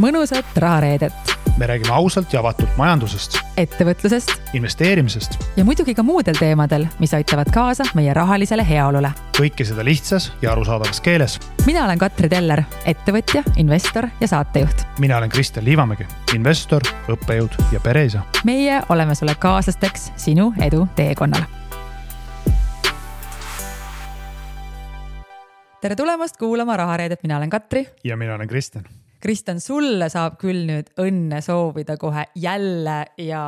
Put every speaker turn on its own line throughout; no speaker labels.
mõnusat rahareedet.
Me räägime ausalt ja avatult majandusest,
ettevõtlusest
investeerimisest
ja muidugi ka muudel teemadel, mis aitavad kaasa meie rahalisele heaolule.
Kõike seda lihtsas ja arusaadavas keeles.
Mina olen Katri Teller, ettevõtja, investor ja saatejuht.
Mina olen Kristjan Liivamägi, investor, õppejõud ja pereisa.
Meie oleme sulle kaaslasteks sinu edu teekonnal. Tere tulemast kuulama rahareedet, mina olen Katri.
Ja mina olen Kristjan.
Kristjan, sulle saab küll nüüd õnne soovida kohe jälle ja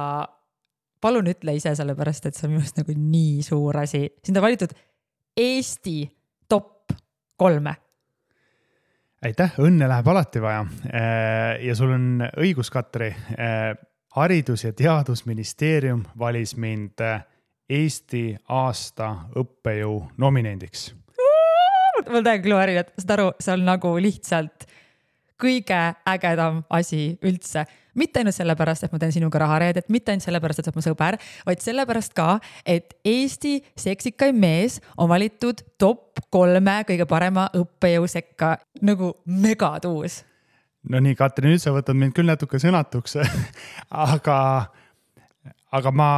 palun ütle ise sellepärast, et see on minust nagu nii suur asi. Sind on valitud Eesti top 3.
Aitäh, õnne läheb alati vaja. Ja sul on õigus, Katri. Haridus- ja Teadusministeerium valis mind Eesti aasta õppejõu nominendiks.
Ma täiega kluarin, et saad aru, see on nagu lihtsalt kõige ägedam asi üldse. Mitte ainult sellepärast, et ma teen sinuga rahareedet, mitte ainult sellepärast, et sa oled mu sõber, vaid sellepärast ka, et Eesti seksikaim mees on valitud top 3 kõige parema õppejõu sekka. Nagu megatuus.
No nii, Katri, nüüd sa võtad mind küll natuke sõnatuks, aga ma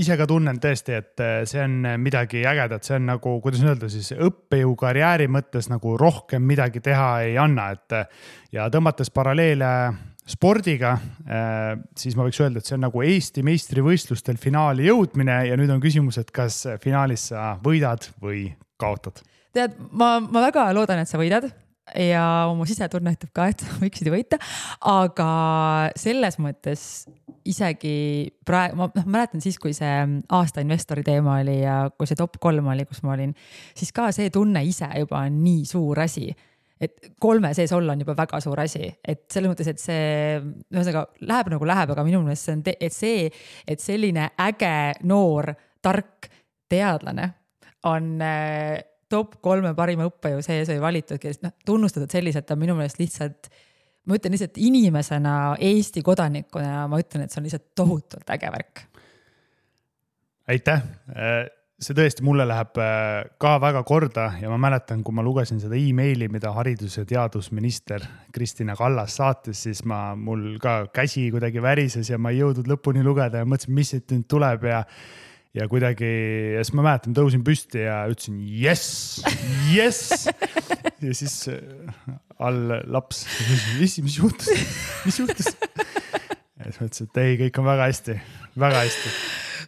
ise ka tunnen tõesti, et see on midagi ägedat. See on nagu, kuidas öelda siis, õppejõu karjääri mõttes nagu rohkem midagi teha ei anna. Ja tõmmates paralleele spordiga, siis ma võiks öelda, et see on nagu Eesti meistrivõistlustel finaali jõudmine ja nüüd on küsimus, et kas finaalis sa võidad või kaotad.
Tead, ma väga loodan, et sa võidad ja mu sisetunne ütleb ka, et võiksid võita, aga selles mõttes isegi praegu, ma mäletan siis, kui see aasta investori teema oli ja kui see top 3 oli, kus ma olin, siis ka see tunne ise juba on nii suur asi, et 3 sees olla on juba väga suur asi, et selles mõttes, et see läheb nagu läheb, aga minu meelest see on, et selline äge, noor, tark teadlane on top 3 parima õppejõu sees või valitud, kes tunnustatud selliselt on minu meelest lihtsalt, ma ütlen lihtsalt inimesena, Eesti kodanikuna, ma ütlen, et see on lihtsalt tohutult äge värk.
Aitäh! See tõesti mulle läheb ka väga korda ja ma mäletan, kui ma lugesin seda e-maili, mida haridus- ja teadusminister Kristina Kallas saatis, siis mul ka käsi kuidagi värises ja ma ei jõudnud lõpuni lugeda ja mõtlesin, mis siit nüüd tuleb ja kuidagi, ja siis ma mäletan, tõusin püsti ja ütlesin, yes! Ja siis all laps, mis juhtus? Ja siis mõtlesin, et ei, kõik on väga hästi.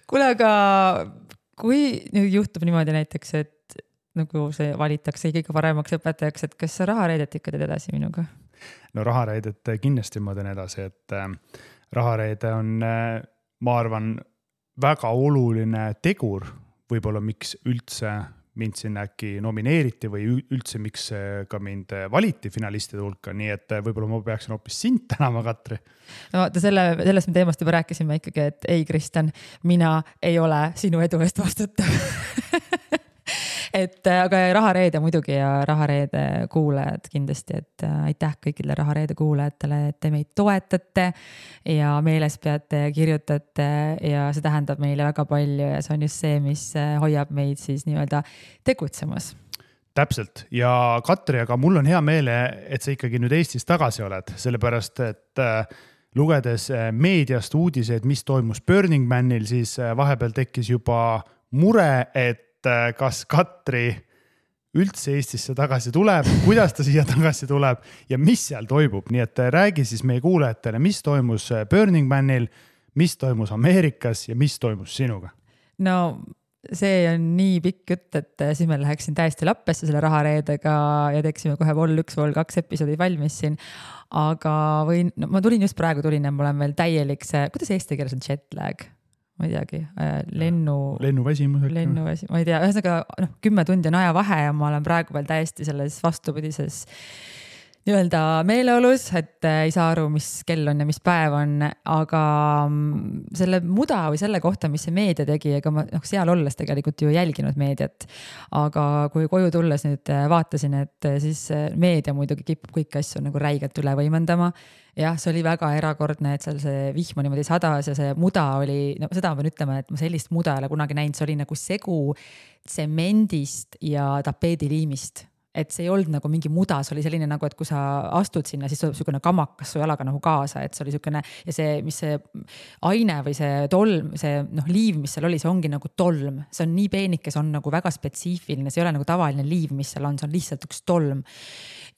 Kuule, aga kui nüüd juhtub niimoodi näiteks, et nagu see valitakse kõige paremaks õpetajaks, et kas sa rahareedet ikka teed edasi minuga?
No rahareedet kindlasti ma teen edasi, et rahareede on, ma arvan, väga oluline tegur, võib-olla miks üldse mind sinna äkki nomineeriti või üldse miks ka mind valiti finalistide hulka, nii et võib-olla ma peaksin hoopis sind tänama, Katri.
No sellest me teemast juba rääkisime ikkagi, et ei, Kristjan, mina ei ole sinu edu eest vastutav. Aga rahareede muidugi ja rahareede kuulajad kindlasti, et aitäh kõikidele rahareede kuulajatele, et te meid toetate ja meeles peate ja kirjutate ja see tähendab meile väga palju ja see on just see, mis hoiab meid siis nii-öelda tegutsemas.
Täpselt. Ja Katri, aga mul on hea meele, et sa ikkagi nüüd Eestis tagasi oled, sellepärast, et lugedes meediast uudiseid, mis toimus Burning Manil, siis vahepeal tekkis juba mure, et kas Katri üldse Eestisse tagasi tuleb, kuidas ta siia tagasi tuleb ja mis seal toimub. Nii et räägi siis meie kuulajatele, mis toimus Burning Manil, mis toimus Ameerikas ja mis toimus sinuga?
No see on nii pikk jutt, et siis me läheksin täiesti lappesse selle rahareedega ja teeksime kohe vol 1, vol 2 episoodid valmis siin. Aga ma tulin just praegu ja ma olen veel täielik see, kuidas eesti keeles on jet lag? Ma ei teagi,
lennuväsimus.
Ma ei tea, ühesõnaga 10 tundi on aja vahe ja ma olen praegu veel täiesti selles vastupidises nii-öelda meeleolus, et ei saa aru, mis kell on ja mis päev on, aga selle muda või selle kohta, mis see meedia tegi, ega ma seal olles tegelikult ju jälginud meediat, aga kui koju tulles nüüd vaatasin, et siis meedia muidugi kipub kõiki asju nagu räigelt üle võimendama. Jah, see oli väga erakordne, et seal see vihma niimoodi sadas ja see muda oli, seda ma pean ütlema, et ma sellist muda ei ole kunagi näinud, see oli nagu segu tsemendist ja tapeediliimist. et see ei olnud nagu mingi muda, see oli selline nagu, et kui sa astud sinna, siis tuleb niisugune kamakas su jalaga nagu kaasa, et see oli niisugune ja see, mis see aine või see tolm, see liiv, mis seal oli, see ongi nagu tolm, see on nii peenike, see on nagu väga spetsiifiline, see ei ole nagu tavaline liiv, mis seal on, see on lihtsalt üks tolm.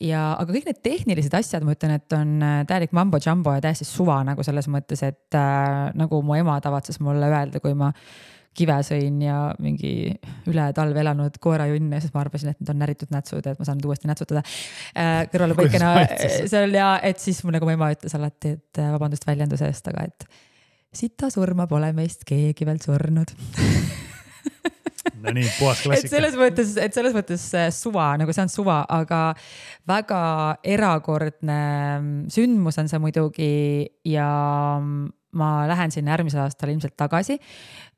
Ja, aga kõik need tehnilised asjad, ma ütlen, et on täielik mambo jumbo ja täiesti suva nagu selles mõttes, et nagu mu ema tavatses mulle öelda, kui ma kive sõin ja mingi üle talve elanud koerajunn ja siis ma arvasin, et need on näritud nätsud, et ma saan uuesti nätsutada kõrvale põikena seal ja et siis nagu mu ema ütles alati, et vabandust väljenduse eest, aga et sita surma pole meist keegi veel surnud.
No nii, puhas klassika.
Et selles mõttes suva, nagu see on suva, aga väga erakordne sündmus on see muidugi ja ma lähen sinna järgmisel aastal ilmselt tagasi.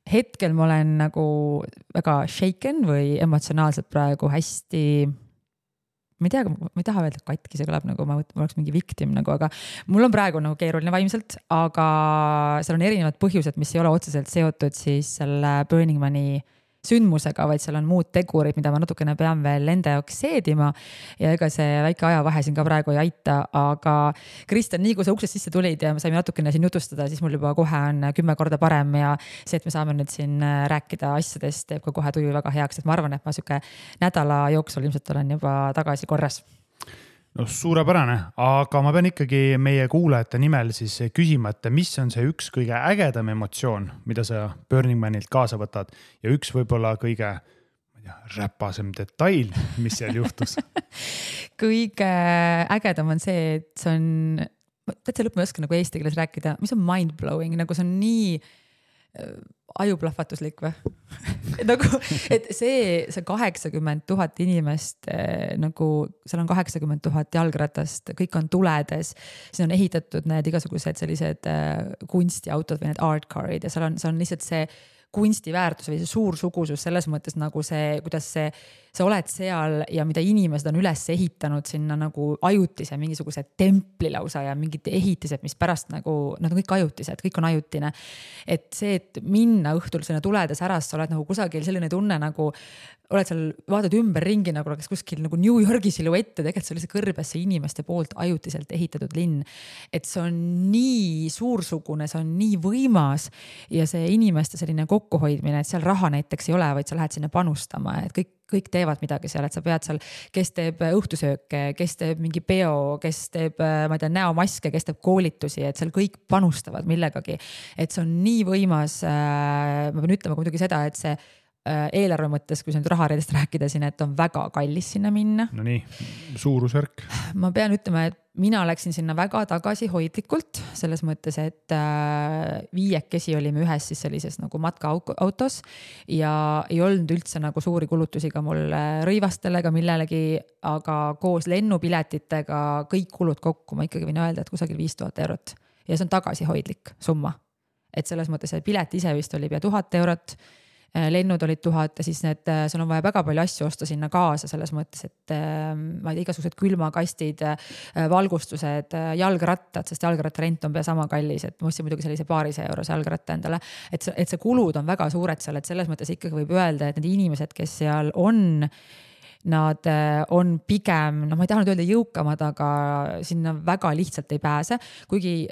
Hetkel ma olen nagu väga shaken või emotsionaalselt praegu hästi, ma ei taha öelda katki, see kõlab nagu ma oleks mingi victim nagu, aga mul on praegu nagu keeruline vaimselt, aga seal on erinevad põhjused, mis ei ole otseselt seotud siis selle Burning Mani sündmusega, vaid seal on muud tegurid, mida ma natukene pean veel enda jaoks seedima ja ega see väike ajavahe siin ka praegu ei aita, aga Kristjan, nii kui sa uksest sisse tulid ja me saime natukene siin jutustada, siis mul juba kohe on 10 korda parem ja see, et me saame nüüd siin rääkida asjadest, teeb ka kohe tuju väga heaks, et ma arvan, et ma siuke nädala jooksul ilmselt olen juba tagasi korras.
No suurepärane, aga ma pean ikkagi meie kuulajate nimel siis küsima, et mis on see üks kõige ägedam emotsioon, mida sa Burning Manilt kaasa võtad ja üks võib-olla kõige räpasem detail, mis seal juhtus?
Kõige ägedam on see, et see on, täitsa lõpp ma ei oska nagu eesti keeles rääkida, mis on mind-blowing, nagu see on nii ajuplahvatuslik või? nagu, et see 80 000 inimest, nagu seal on 80 000 jalgratast, kõik on tuledes, siin on ehitatud need igasugused sellised kunstiautod või need art carid ja seal on lihtsalt see kunstiväärtus või see suursugusus selles mõttes nagu see, kuidas sa oled seal ja mida inimesed on üles ehitanud sinna nagu ajutise mingisuguse templi lausa ja mingid ehitised, mis pärast nagu, nad on kõik ajutised, kõik on ajutine. Et see, et minna õhtul sinna tuledes äras, sa oled nagu kusagil selline tunne nagu, oled seal, vaatad ümber ringi nagu oleks kuskil nagu New Yorgi siluette, tegelikult see oli see kõrbesse inimeste poolt ajutiselt ehitatud linn. Et see on nii suursugune, see on nii võimas ja see inimeste selline kokkuhoidmine, et seal raha näiteks ei ole, vaid sa lähed sinna panustama, et kõik teevad midagi seal, et sa pead seal, kes teeb õhtusööke, kes teeb mingi peo, kes teeb, ma ei tea, näomaske, kes teeb koolitusi, et seal kõik panustavad millegagi. Et see on nii võimas, ma pean ütlema muidugi seda, et see eelarve mõttes, kui sa nüüd rahareedest rääkida siin, et on väga kallis sinna minna.
No nii, suurusvärk.
Ma pean ütlema, et mina läksin sinna väga tagasihoidlikult, selles mõttes, et 5 olime ühes siis sellises nagu matkaautos ja ei olnud üldse nagu suuri kulutusi ka mul rõivastele ega millelegi, aga koos lennupiletitega kõik kulud kokku, ma ikkagi võin öelda, et kusagil 5000 eurot ja see on tagasihoidlik summa. Et selles mõttes, et pilet ise vist oli pea 1000 eurot, lennud olid 1000 ja siis sul on vaja väga palju asju osta sinna kaasa selles mõttes, et ma ei tea, igasugused külmakastid, valgustused, jalgrattad, sest jalgrattarent on pea sama kallis, et ma ostsin muidugi sellise €200 jalgratta endale, et see kulud on väga suured seal, et selles mõttes ikkagi võib öelda, et need inimesed, kes seal on, nad on pigem, ma ei taha nüüd öelda jõukamad, aga sinna väga lihtsalt ei pääse, kuigi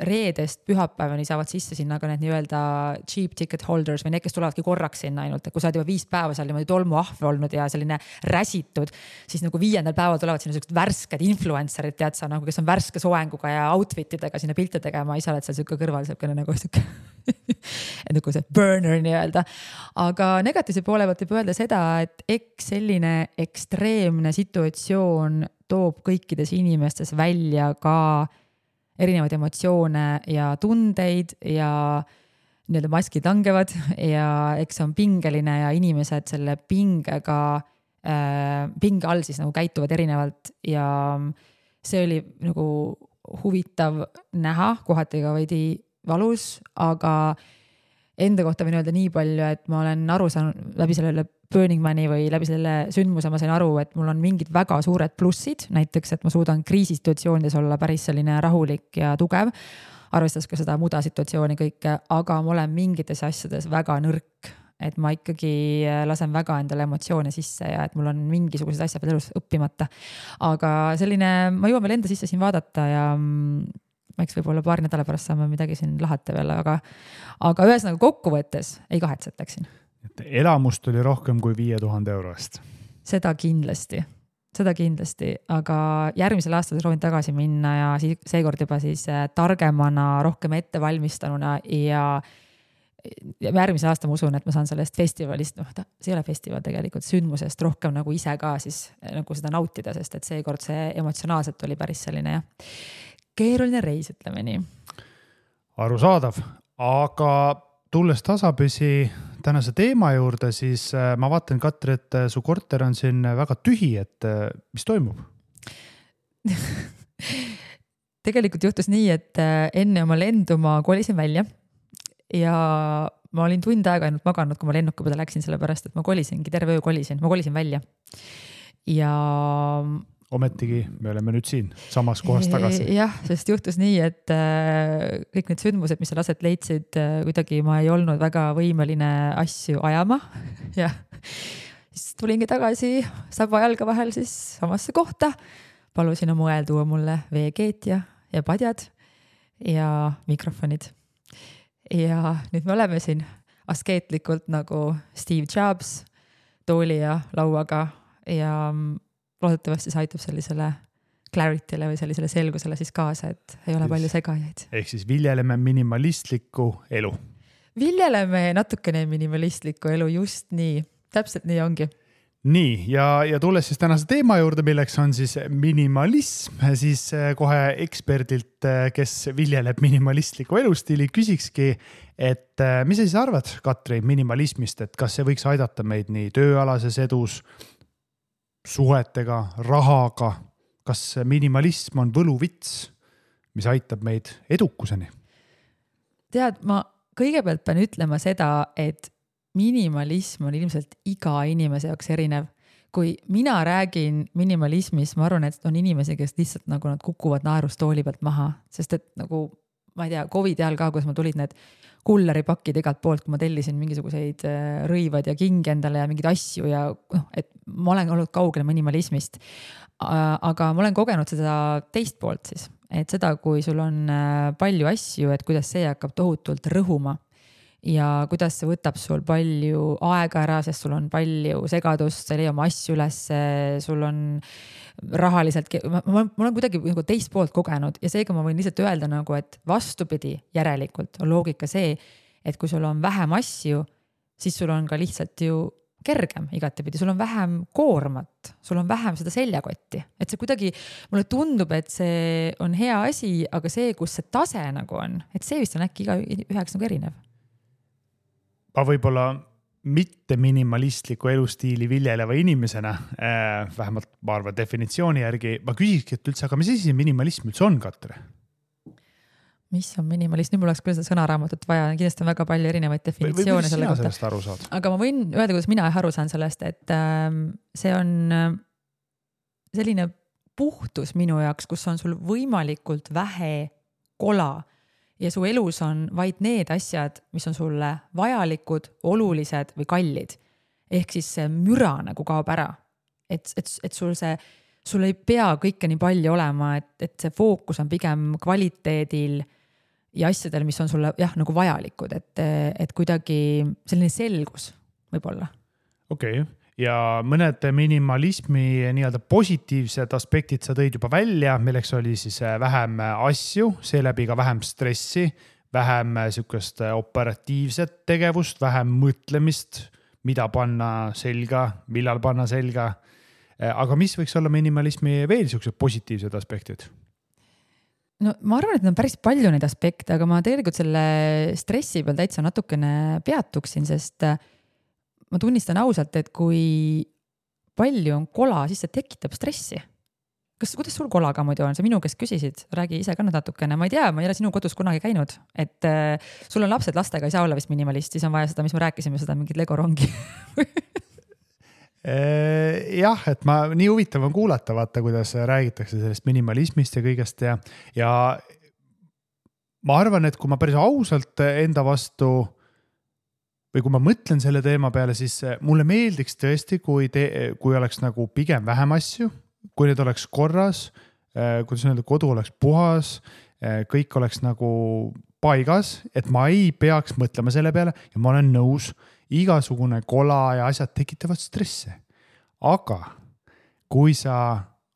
reedest pühapäevani saavad sisse sinna ka need nii-öelda cheap ticket holders või need, kes tulevadki korraks sinna ainult, et kui sa oled juba 5 päeva seal niimoodi tolmuahve olnud ja selline räsitud, siis nagu 5. päeval tulevad sinna sellised värsked influencerid, tead sa, nagu, kes on värske soenguga ja outfitidega sinna pilte tegema, ise oled seal siuke kõrval, siukene nagu siuke nagu see burner nii-öelda. Aga negatiivse poole pealt võib öelda seda, et eks selline ekstreemne situatsioon toob kõikides inimestes välja ka erinevaid emotsioone ja tundeid ja nii-öelda maskid langevad ja eks on pingeline ja inimesed selle pinge all siis nagu käituvad erinevalt ja see oli nagu huvitav näha, kohati ka veidi valus, aga enda kohta võin öelda nii palju, et ma olen aru saanud läbi sellele Burning Mani või läbi selle sündmuse ma sain aru, et mul on mingid väga suured plussid, näiteks, et ma suudan kriisisituatsioonides olla päris selline rahulik ja tugev, arvestades ka seda muda situatsiooni kõike, aga ma olen mingites asjades väga nõrk. et ma ikkagi lasen väga endale emotsioone sisse ja et mul on mingisugused asjad veel elus õppimata. Aga selline, ma jõuan veel enda sisse siin vaadata ja eks võib-olla paari nädala pärast saame midagi siin lahata veel, aga ühesõnaga kokkuvõttes ei kahetsetaks siin.
Elamust oli rohkem kui 5000 eurost.
Seda kindlasti, aga järgmisel aastal soovin tagasi minna ja seekord juba siis targemana, rohkem ettevalmistanuna ja järgmise aasta ma usun, et ma saan sellest festivalist, see ei ole festival tegelikult, sündmusest rohkem nagu ise ka siis nagu seda nautida, sest et seekord see emotsionaalselt oli päris selline keeruline reis, ütleme nii.
Arusaadav, aga tulles tasapisi tänase teema juurde, siis ma vaatan, Katri, et su korter on siin väga tühi, et mis toimub?
Tegelikult juhtus nii, et enne oma lendu ma kolisin välja ja ma olin tund aega ainult maganud, kui ma lennuki peale läksin, sellepärast, et ma terve öö ma kolisin välja. Ja
ometigi me oleme nüüd siin samas kohas tagasi.
Jah, sest juhtus nii, et kõik need sündmused, mis seal aset leidsid, kuidagi ma ei olnud väga võimeline asju ajama. Ja siis tulingi tagasi saba jalga vahel siis samasse kohta. Palusin oma õel tuua mulle veekeet ja padjad ja mikrofonid. Ja nüüd me oleme siin askeetlikult nagu Steve Jobs tooli ja lauaga ja loodetavasti see aitab sellisele clarity'le või sellisele selgusele siis kaasa, et ei ole palju segajaid.
Ehk siis viljeleme minimalistlikku elu.
Viljeleme natukene minimalistlikku elu, just nii. Täpselt nii ongi.
Nii, ja tulles siis tänase teema juurde, milleks on siis minimalism, siis kohe eksperdilt, kes viljeleb minimalistliku elustiili, küsikski, et mis sa siis arvad, Katri, minimalismist, et kas see võiks aidata meid nii tööalases edus, suhetega, rahaga, kas minimalism on võluvits, mis aitab meid edukuseni? Tead,
ma kõigepealt pean ütlema seda, et minimalism on ilmselt iga inimese jaoks erinev. Kui mina räägin minimalismist, ma arvan, et on inimesi, kes lihtsalt nagu nad kukuvad naerustooli pealt maha, sest et nagu, ma ei tea, COVID ajal ka, kus ma tulid need kulleripakid igalt poolt, kui ma tellisin mingisuguseid rõivad ja kingi endale ja mingeid asju ja et ma olen olnud kaugel minimalismist. Aga ma olen kogenud seda teist poolt siis, et seda, kui sul on palju asju, et kuidas see hakkab tohutult rõhuma ja kuidas see võtab sul palju aega ära, sest sul on palju segadust, sa ei leia oma asju üles, sul on rahaliselt, ma olen kuidagi nagu teist poolt kogenud ja seega ma võin lihtsalt öelda nagu, et vastupidi järelikult on loogika see, et kui sul on vähem asju, siis sul on ka lihtsalt ju kergem igatepidi, sul on vähem koormat, sul on vähem seda seljakotti, et see kuidagi, mulle tundub, et see on hea asi, aga see, kus see tase nagu on, et see vist on äkki iga üheks nagu erinev.
Ma võib-olla mitte minimalistliku elustiili viljeleva inimesena, vähemalt ma arvan definitsiooni järgi, ma küsikski, et üldse, aga mis asi minimalism üldse on, Katri?
Mis on minimalism? Nüüd mul oleks küll seda sõnaraamatut vaja, kindlasti on väga palju erinevaid definitsioone selle kohta. Aga ma võin öelda, kuidas mina aru saan sellest, et see on selline puhtus minu jaoks, kus on sul võimalikult vähe kola ja su elus on vaid need asjad, mis on sulle vajalikud, olulised või kallid. Ehk siis see müra nagu kaob ära. Et sul ei pea kõike nii palju olema, et see fookus on pigem kvaliteedil ja asjadel, mis on sulle nagu vajalikud. Et kuidagi selline selgus võib-olla. Okei.
Ja mõned minimalismi nii-öelda positiivsed aspektid sa tõid juba välja, milleks oli siis vähem asju, seeläbi ka vähem stressi, vähem sükest operatiivset tegevust, vähem mõtlemist, mida panna selga, millal panna selga. Aga mis võiks olla minimalismi veel sükesed positiivsed aspektid?
No ma arvan, et on päris palju neid aspekte, aga ma tegelikult selle stressi peal täitsa natukene peatuksin, sest ma tunnistan ausalt, et kui palju on kola, siis see tekitab stressi. Kuidas sul kolaga muidu on? See minu kes küsisid, räägi ise ka natukene. Ma ei tea, ma ei ole sinu kodus kunagi käinud. Et sul on lapsed, lastega ei saa olla vist minimalist, siis on vaja seda, mis me rääkisime, seda mingit Lego rongi.
Jah, et nii huvitav on kuulata, vaata, kuidas räägitakse sellest minimalismist ja kõigest ja ma arvan, et kui ma päris ausalt enda vastu või kui ma mõtlen selle teema peale, siis mulle meeldiks tõesti, kui oleks nagu pigem vähem asju, kui need oleks korras, kuidas öelda, kodu oleks puhas, kõik oleks nagu paigas, et ma ei peaks mõtlema selle peale ja ma olen nõus, igasugune kola ja asjad tekitavad stressi. Aga kui sa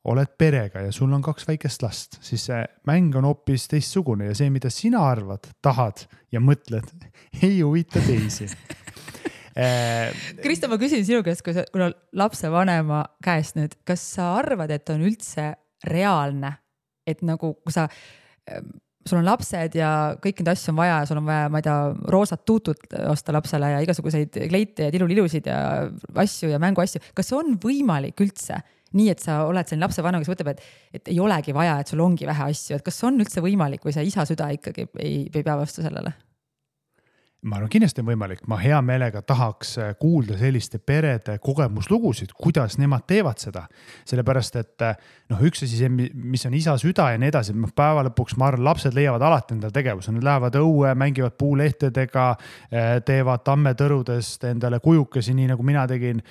oled perega ja sul on 2 väikest last, siis see mäng on hoopis teistsugune ja see, mida sina arvad, tahad ja mõtled, ei huvita teisi.
Kristo, ma küsin sinu käest, kui lapsevanema käest nüüd, kas sa arvad, et on üldse reaalne, et nagu kui sul on lapsed ja kõik need asju on vaja ja sul on vaja, ma ei tea, roosat tuutut osta lapsele ja igasuguseid kleite ja tilulilusid ja asju ja mänguasju. Kas on võimalik üldse nii, et sa oled selline lapsevanem, kes mõtleb, et ei olegi vaja, et sul ongi vähe asju, et kas on üldse võimalik või see isa süda ikkagi ei pea vastu sellele?
Ma arvan, kindlasti on võimalik. Ma hea meelega tahaks kuulda selliste perede kogemuslugusid, kuidas nemad teevad seda. Sellepärast, et üks asi, mis on isa süda ja nii edasi, päeva lõpuks ma arvan, lapsed leiavad alati endale tegevuse. Nad lähevad õue, mängivad puulehtedega, teevad tammetõrudest endale kujukesi, nii nagu mina tegin,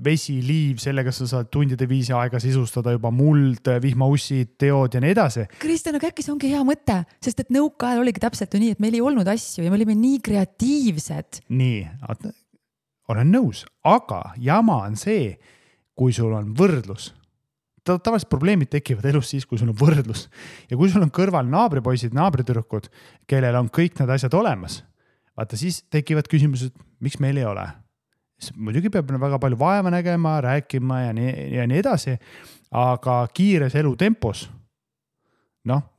vesi, liiv, sellega sa saad tundide viisi aega sisustada juba muld, vihmaussid, teod ja nii edasi.
Kristjan, aga äkki see ongi hea mõte, sest et nõukaajal oligi täpselt ju nii, et meil ei olnud asju ja me olime nii kreatiivsed.
Nii, olen nõus, aga jama on see, kui sul on võrdlus. Tavaliselt probleemid tekivad elus siis, kui sul on võrdlus. Ja kui sul on kõrval naabripoisid, naabritüdrukud, kellel on kõik need asjad olemas, vaata siis tekivad küsimused, miks meil ei ole. Muidugi peab väga palju vaeva nägema, rääkima ja nii edasi, aga kiires elutempos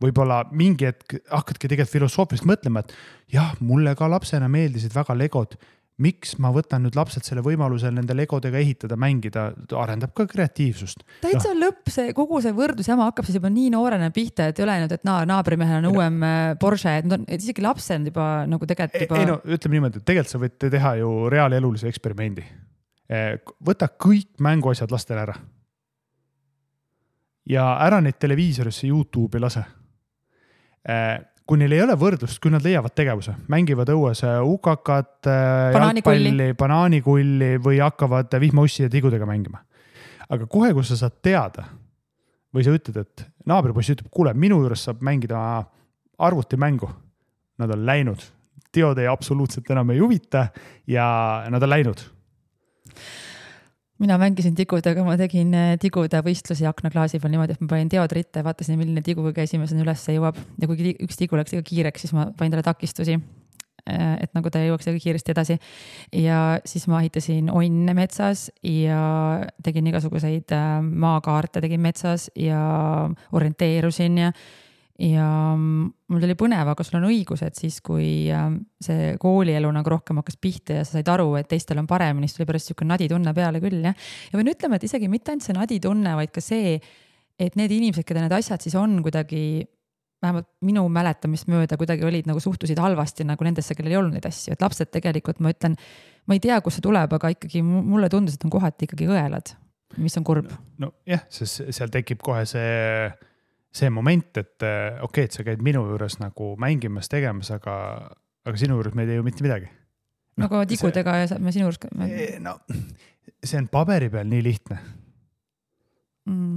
võib-olla mingi hetk hakkadki tegelikult filosoofilist mõtlema, et jah, mulle ka lapsena meeldisid väga legod. Miks ma võtan nüüd lapselt selle võimaluse nende legodega ehitada, mängida, arendab ka kreatiivsust.
Täitsa lõpp, kogu see võrdlusjama hakkab siis juba nii noorena pihta, et ei ole nüüd, et naabrimehel on uuem Porsche, et isegi lapsed on juba nagu tegelikult juba...
Ütleme niimoodi, et tegelikult sa võid teha ju reaalelulise eksperimendi. Võta kõik mänguasjad lastele ära. Ja ära neid televiisorisse YouTube'i lase. Kui neil ei ole võrdlust, kui nad leiavad tegevuse, mängivad õues ukakat, jalgpalli, banaanikulli või hakkavad vihmaussi ja tigudega mängima. Aga kohe, kui sa saad teada või sa ütled, et naabripoiss ütleb, kuule, minu juures saab mängida arvutimängu. Nad on läinud. Teod ei absoluutselt enam ei huvita ja nad on läinud.
Mina mängisin tigudega, ma tegin tigude võistlusi aknaklaasi peal niimoodi, et ma panin teod ritte, vaatasin, milline tiguga esimesena üles jõuab. Ja kui üks tigu läks kiireks, siis ma panin talle takistusi, et nagu ta jõuaks kiiresti edasi. Ja siis ma ehitasin onne metsas ja tegin igasuguseid maakaarte, tegin metsas ja orienteerusin ja mul oli põnev, aga sul on õigus, et siis kui see koolielu nagu rohkem hakkas pihta ja sa said aru, et teistel on paremini, siis tuli pärast niisugune naditunne peale küll. Ja võin ütlema, et isegi mitte ainult see naditunne, vaid ka see, et need inimesed, keda need asjad siis on kuidagi, vähemalt minu mäletamist mööda, kuidagi olid nagu suhtusid halvasti nagu nendesse, kellel ei olnud neid asju. Et lapsed tegelikult, ma ütlen, ma ei tea, kus see tuleb, aga ikkagi mulle tundus, et on kohati ikkagi õelad, mis on kurb.
No jah, sest seal tekib kohe see moment, et okei, et sa käid minu juures nagu mängimas, tegemas, aga sinu juures me ei tee ju mitte midagi.
Nagu tigudega ja me sinu juures...
See on paberi peal nii lihtne.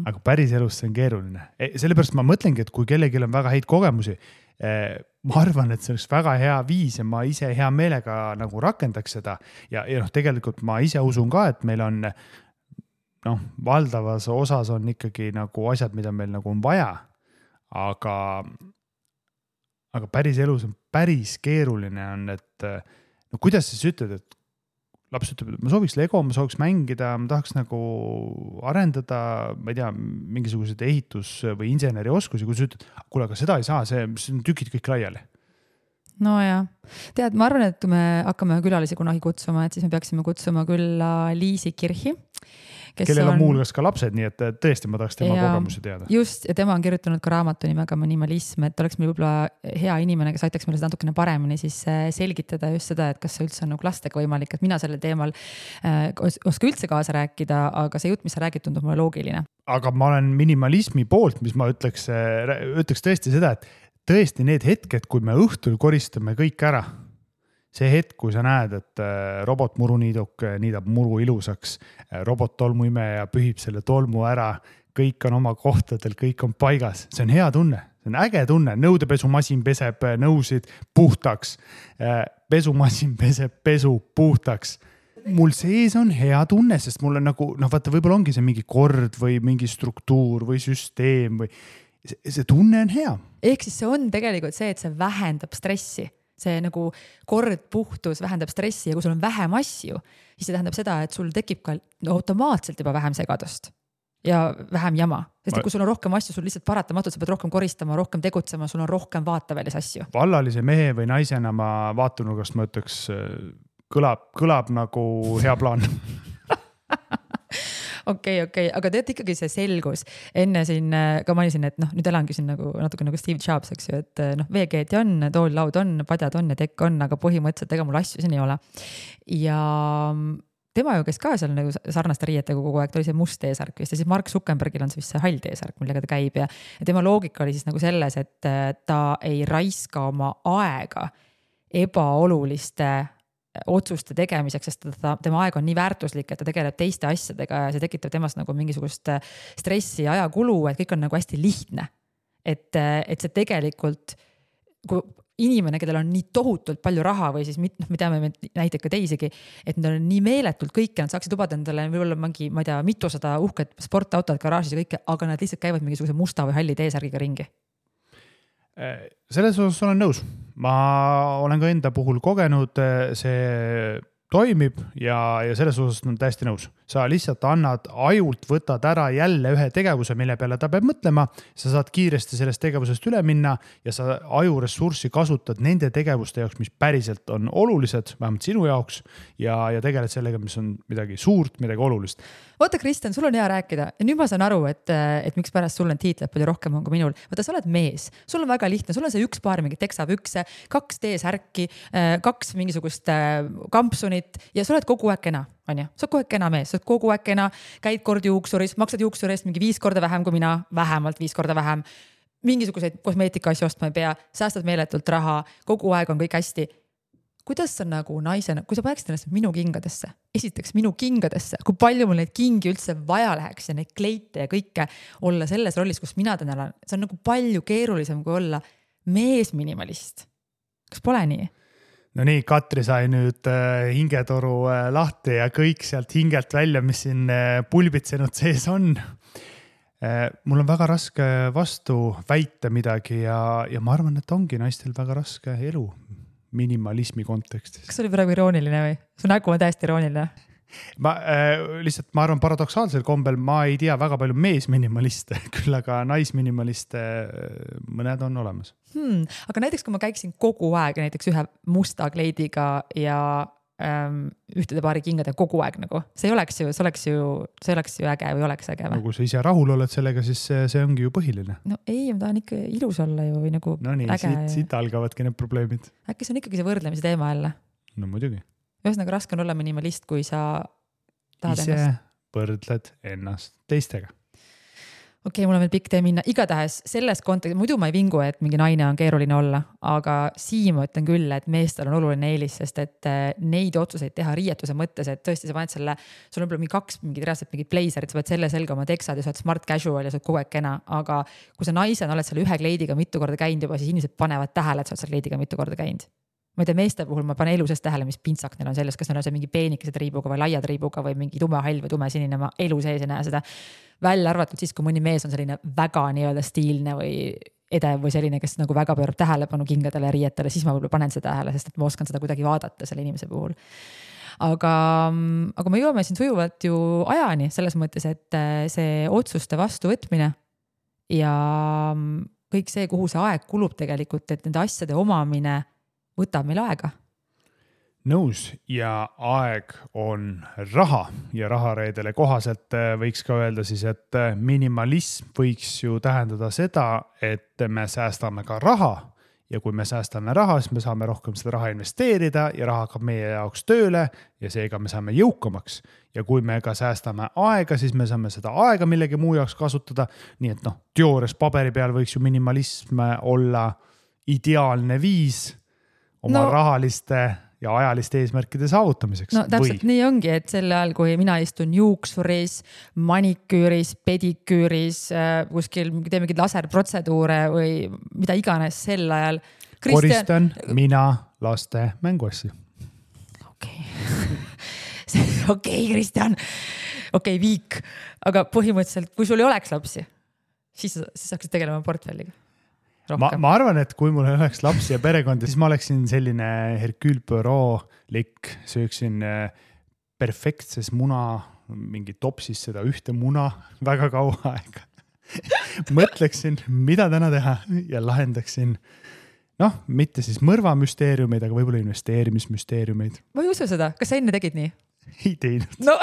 Aga päris elus see on keeruline. Sellepärast ma mõtlengi, et kui kellelgi on väga häid kogemusi, ma arvan, et see oleks väga hea viis ja ma ise hea meelega nagu rakendaks seda. Ja tegelikult ma ise usun ka, et meil on valdavas osas on ikkagi nagu asjad, mida meil nagu on vaja, aga päris elus on päris keeruline on, et kuidas siis ütled, et laps ütleb, et ma sooviks Lego, ma sooviks mängida, ma tahaks nagu arendada, ma ei tea, mingisugused ehitus- või inseneri oskusi, kui sa ütled, kuule, aga seda ei saa, see on tükid kõik laiali.
No ja, tead, ma arvan, et kui me hakkame külalisi kunagi kutsuma, et siis me peaksime kutsuma külla Liisi Kirhi,
kellel on muulgas ka lapsed, nii et tõesti ma tahaks tema kogemusi teada.
Just, ja tema on kirjutanud ka raamatu nimega Minimalism, et oleks meil võib-olla hea inimene, kes aitaks meile seda natukene paremini siis selgitada just seda, et kas see üldse on nagu lastega võimalik, et mina sellel teemal oska üldse kaasa rääkida, aga see jutt, mis sa räägid, tundub mulle loogiline.
Aga ma olen minimalismi poolt, mis ma ütleks tõesti seda, et tõesti need hetked, kui me õhtul koristame kõik ära, see hetk, kui sa näed, et robotmuruniiduk niidab muru ilusaks, robot-tolmuimeja pühib selle tolmu ära, kõik on oma kohtadel, kõik on paigas. See on hea tunne, see on äge tunne. Nõudepesumasin peseb nõusid puhtaks, pesumasin peseb pesu puhtaks. Mul sees on hea tunne, sest mul on nagu, vaata, võib-olla ongi see mingi kord või mingi struktuur või süsteem või see tunne on hea.
Ehk siis see on tegelikult see, et see vähendab stressi. See nagu kord, puhtus vähendab stressi ja kui sul on vähem asju, siis see tähendab seda, et sul tekib ka automaatselt juba vähem segadust ja vähem jama. Sest kui sul on rohkem asju, sul lihtsalt paratamatult, sa pead rohkem koristama, rohkem tegutsema, sul on rohkem vaatavälis asju.
Vallalise mehe või naisena ma vaatunurgast ma ütleks, kõlab nagu hea plaan.
Okei, aga tead ikkagi see selgus. Enne siin ka mainisin, et nüüd elangi siin natuke nagu Steve Jobs, eks ju, et veekeeti on, tool, laud on, padjad on ja tekk on, aga põhimõtteliselt ega mul asju siin ei ole. Ja tema ju, kes ka seal nagu sarnaste riietega kogu aeg, ta oli see must T-särk vist ja siis Mark Zuckerbergil on see vist see hall T-särk, millega ta käib ja tema loogika oli siis nagu selles, et ta ei raiska oma aega ebaoluliste otsuste tegemiseks, sest tema aeg on nii väärtuslik, et ta tegeleb teiste asjadega ja see tekitab temast nagu mingisugust stressi ja ajakulu, et kõik on nagu hästi lihtne. Et see tegelikult, kui inimene, kellel on nii tohutult palju raha või siis me teame näiteid ka teisigi, et nad on nii meeletult kõike, nad saaksid lubada endale võib-olla mingi, ma ei tea, mitusada uhket sportautod garaažis ja kõike, aga nad lihtsalt käivad mingisuguse musta või halli T-särgiga ringi.
Selles osas olen nõus. Ma olen ka enda puhul kogenud, see toimib ja selles osas on täiesti nõus. Sa lihtsalt annad ajult, võtad ära jälle ühe tegevuse, mille peale ta peab mõtlema. Sa saad kiiresti sellest tegevusest üle minna ja sa ajuressurssi kasutad nende tegevuste jaoks, mis päriselt on olulised, vähemalt sinu jaoks ja tegeled sellega, mis on midagi suurt, midagi olulist.
Oota, Kristjan, sul on hea rääkida ja nüüd ma saan aru, et miks pärast sul on tiitled palju rohkem on kui minul. Vaata, sa oled mees, sul on väga lihtne, sul on see üks paar mingi teksapükse, 2 T-särki, 2 mingisugust kampsunit ja sa oled kogu aeg kena, on ju? Sa oled kogu aeg kena mees, sa oled kogu aeg kena, käid kord juuksuris, maksad juuksuri eest mingi 5 korda vähem kui mina, vähemalt 5 korda vähem, mingisuguseid kosmeetika asju ostma ei pea, säästad meeletult raha, kogu aeg on kõik hästi. Kuidas sa nagu naisena, kui sa paneksid ennast minu kingadesse, esiteks minu kingadesse, kui palju mul neid kingi üldse vaja läheks ja neid kleite ja kõike olla selles rollis, kus mina täna olen, see on nagu palju keerulisem kui olla mees minimalist. Kas pole nii?
No nii, Katri sai nüüd hingetoru lahti ja kõik sealt hingelt välja, mis siin pulbitsenud sees on. Mul on väga raske vastu väita midagi ja ma arvan, et ongi naistel väga raske elu minimalismi kontekstis.
Kas see oli praegu irooniline või? Su nägu on täiesti irooniline.
Ma arvan paradoksaalsel kombel, ma ei tea väga palju meesminimaliste, küll aga naisminimaliste mõned on olemas.
Aga näiteks, kui ma käiksin kogu aeg näiteks ühe musta kleidiga ja ühtede paari kingade kogu aeg nagu, see oleks ju äge või oleks äge või?
Kui sa ise rahul oled sellega, siis see ongi ju põhiline.
No ei, ma tahan ikka ilus olla ju või nagu
no nii, äge. Siit algavadki need probleemid.
Äkki see on ikkagi see võrdlemise teema jälle?
No muidugi.
Ühesõnaga raske on olla minimalist, kui sa tahad
ise võrdled ennast teistega.
Okei, mul on veel pikk tee minna. Igatahes selles kontekstis, muidu ma ei vingu, et mingi naine on keeruline olla, aga siin ma ütlen küll, et meestel on oluline eelis, sest et neid otsuseid teha riietuse mõttes, et tõesti sa paned selle, sul on mingi 2 reaalselt mingid blazerid, sa paned selle selga oma teksad ja sa oled smart casual ja sa oled kogu aeg kena, aga kui sa naisena oled selle ühe kleidiga mitu korda käinud juba, siis inimesed panevad tähele, et sa oled selle kleidiga mitu korda käinud. Ma ei tea, meeste puhul ma panen elu sees tähele, mis pintsak neil on selles, kas neil on see mingi peenikesed riibuga või laiad riibuga või mingi tume hall või tume sinine, ma elu sees ei näe seda. Välja arvatud siis, kui mõni mees on selline väga nii-öelda stiilne või edev või selline, kes nagu väga pöörab tähelepanu kingadele ja riietele, siis ma võib-olla panen seda tähele, sest et ma oskan seda kuidagi vaadata selle inimese puhul. Aga me jõuame siin sujuvalt ju ajani selles mõttes, et see otsuste vastuvõtmine ja kõik see, kuhu see aeg kulub tegelikult, et nende asjade omamine võtab meil aega.
Nõus ja aeg on raha ja rahareedele kohaselt võiks ka öelda siis, et minimalism võiks ju tähendada seda, et me säästame ka raha ja kui me säästame raha, siis me saame rohkem seda raha investeerida ja raha hakkab meie jaoks tööle ja seega me saame jõukamaks. Ja kui me ka säästame aega, siis me saame seda aega millegi muu jaoks kasutada. Nii et teoorias paberi peal võiks ju minimalism olla ideaalne viis oma rahaliste ja ajaliste eesmärkide saavutamiseks.
No täpselt nii ongi, et sel ajal, kui mina istun juuksuris, maniküüris, pediküüris, kuskil teeme mingid laserprotseduure või mida iganes sel ajal.
Koristan mina laste mänguasju.
Okei, Kristjan. Okei, viik. Aga põhimõtteliselt, kui sul ei oleks lapsi, siis saaksid tegelema portfelliga.
Ma arvan, et kui mul oleks lapsi ja perekondi, siis ma oleksin selline Hercule Poirot-lik, sööksin perfektses muna, mingi topsis seda ühte muna väga kaua aega. Mõtleksin, mida täna teha ja lahendaksin, mitte siis mõrvamüsteeriumeid, aga võib-olla investeerimismüsteeriumeid.
Ma ei usu seda. Kas sa enne tegid nii?
Ei teinud.
No.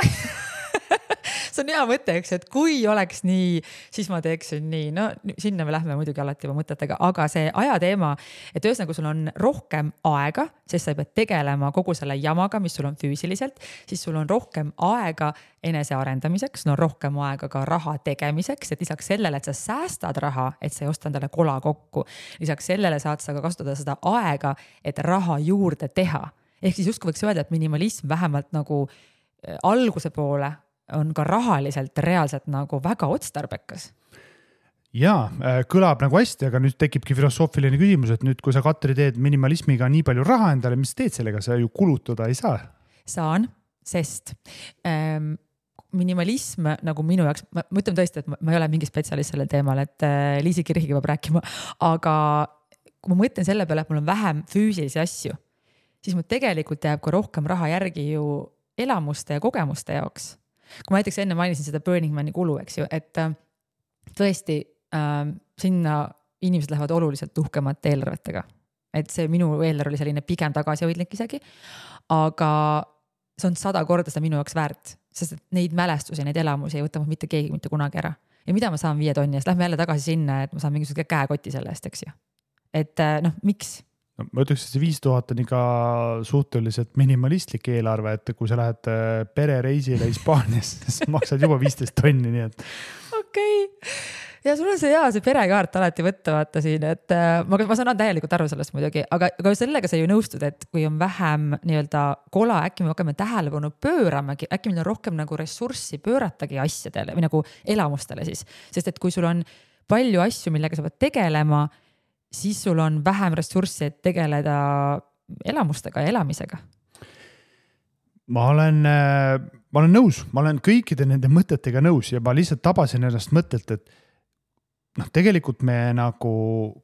See on hea mõte, eks, et kui oleks nii, siis ma teeksin nii. No sinna me lähme muidugi alati juba mõtetega, aga see ajateema, et ühesõnaga sul on rohkem aega, sest sa ei pea tegelema kogu selle jamaga, mis sul on füüsiliselt, siis sul on rohkem aega enese arendamiseks, no rohkem aega ka raha tegemiseks, et lisaks sellele, et sa säästad raha, et sa ei osta endale kola kokku. Lisaks sellele saad sa ka kasutada seda aega, et raha juurde teha. Ehk siis justkui võiks öelda, et minimalism vähemalt nagu alguse poole on ka rahaliselt reaalselt nagu väga otstarbekas.
Jaa, kõlab nagu hästi, aga nüüd tekibki filosoofiline küsimus, et nüüd, kui sa, Katri, teed minimalismiga nii palju raha endale, mis teed sellega, sa ju kulutada ei saa?
Saan, sest minimalism nagu minu jaoks, ma ütlen tõesti, et ma ei ole mingi spetsialist sellel teemal, et Liisi Kirhiga peab rääkima, aga kui ma mõtlen selle peale, et mul on vähem füüsilisi asju, siis mul tegelikult jääb ka rohkem raha järgi ju elamuste ja kogemuste jaoks. Kui ma näiteks enne mainisin seda Burning Mani kulu, eks ju, et tõesti sinna inimesed lähevad oluliselt uhkemate eelarvetega. Et see minu eelarve oli selline pigem tagasihoidlik isegi, aga see on 100 korda seda minu jaoks väärt, sest et neid mälestusi, neid elamusi ei võta mitte keegi mitte kunagi ära. Ja mida ma saan 5 tonni eest? Lähme jälle tagasi sinna, et ma saan mingisuguse käekoti selle eest, eks ju. Et miks?
Ma ütleks, et see 5000 on ikka suhteliselt minimalistlik eelarve, et kui sa lähed perereisile Hispaanias, siis maksad juba 15 tonni, nii et.
Okei. Ja sul on see perekaart alati võtta vaata siin, et ma saan täielikult aru sellest muidugi, aga sellega sa ju nõustud, et kui on vähem nii-öelda kola, äkki me hakkame tähelepanu pööramagi, äkki meil on rohkem nagu ressurssi pööratagi asjadele või nagu elamustele siis, sest et kui sul on palju asju, millega sa pead tegelema, siis sul on vähem ressurssi, et tegeleda elamustega ja elamisega.
Ma olen nõus, ma olen kõikide nende mõtetega nõus ja ma lihtsalt tabasin ennast mõttelt, et tegelikult me nagu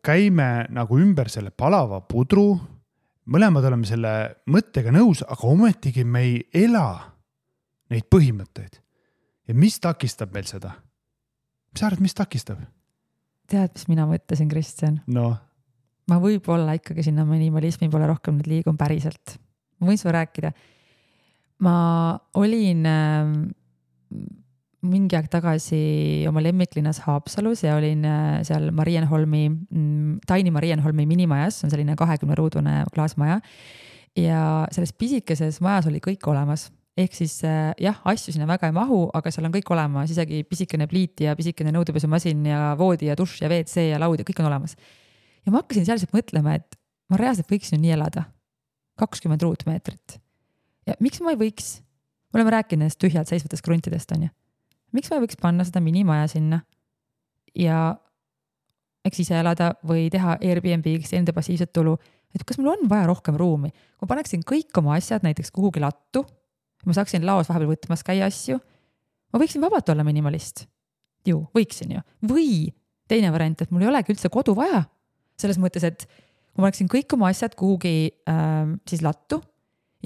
käime nagu ümber selle palava pudru, mõlemad oleme selle mõttega nõus, aga ometigi me ei ela neid põhimõtteid. Ja mis takistab meil seda? Mis sa arvad, mis takistab?
Tead, mis mina mõtlesin, Kristjan?
No.
Ma võib-olla ikkagi sinna minimalismi pole rohkem nüüd liigun päriselt. Ma võin sulle rääkida. Ma olin mingi aeg tagasi oma lemmiklinnas Haapsalus ja olin seal Taini Marienholmi minimajas, on selline 20-ruudune klaasmaja ja selles pisikeses majas oli kõik olemas. Ehk siis jah, asju sinna väga ei mahu, aga seal on kõik olemas, isegi pisikene pliit ja pisikene nõudepesumasin ja voodi ja dušš ja WC ja laud ja kõik on olemas. Ja ma hakkasin sealselt mõtlema, et ma reaalselt võiksin nii elada 20 ruutmeetrit. Ja miks ma ei võiks? Me oleme rääkinud nendest tühjalt seisvatest kruntidest, on ju. Miks ma ei võiks panna seda minimaja sinna ja eks ise elada või teha Airbnb-ks enda passiivset tulu, et kas mul on vaja rohkem ruumi? Kui ma paneksin kõik oma asjad näiteks kuhugi lattu, ma saaksin laos vahepeal võtmas käia asju, ma võiksin vabalt olla minimalist. Ju, võiksin ju. Või teine variant, et mul ei olegi üldse kodu vaja. Selles mõttes, et kui ma oleksin kõik oma asjad kuhugi siis lattu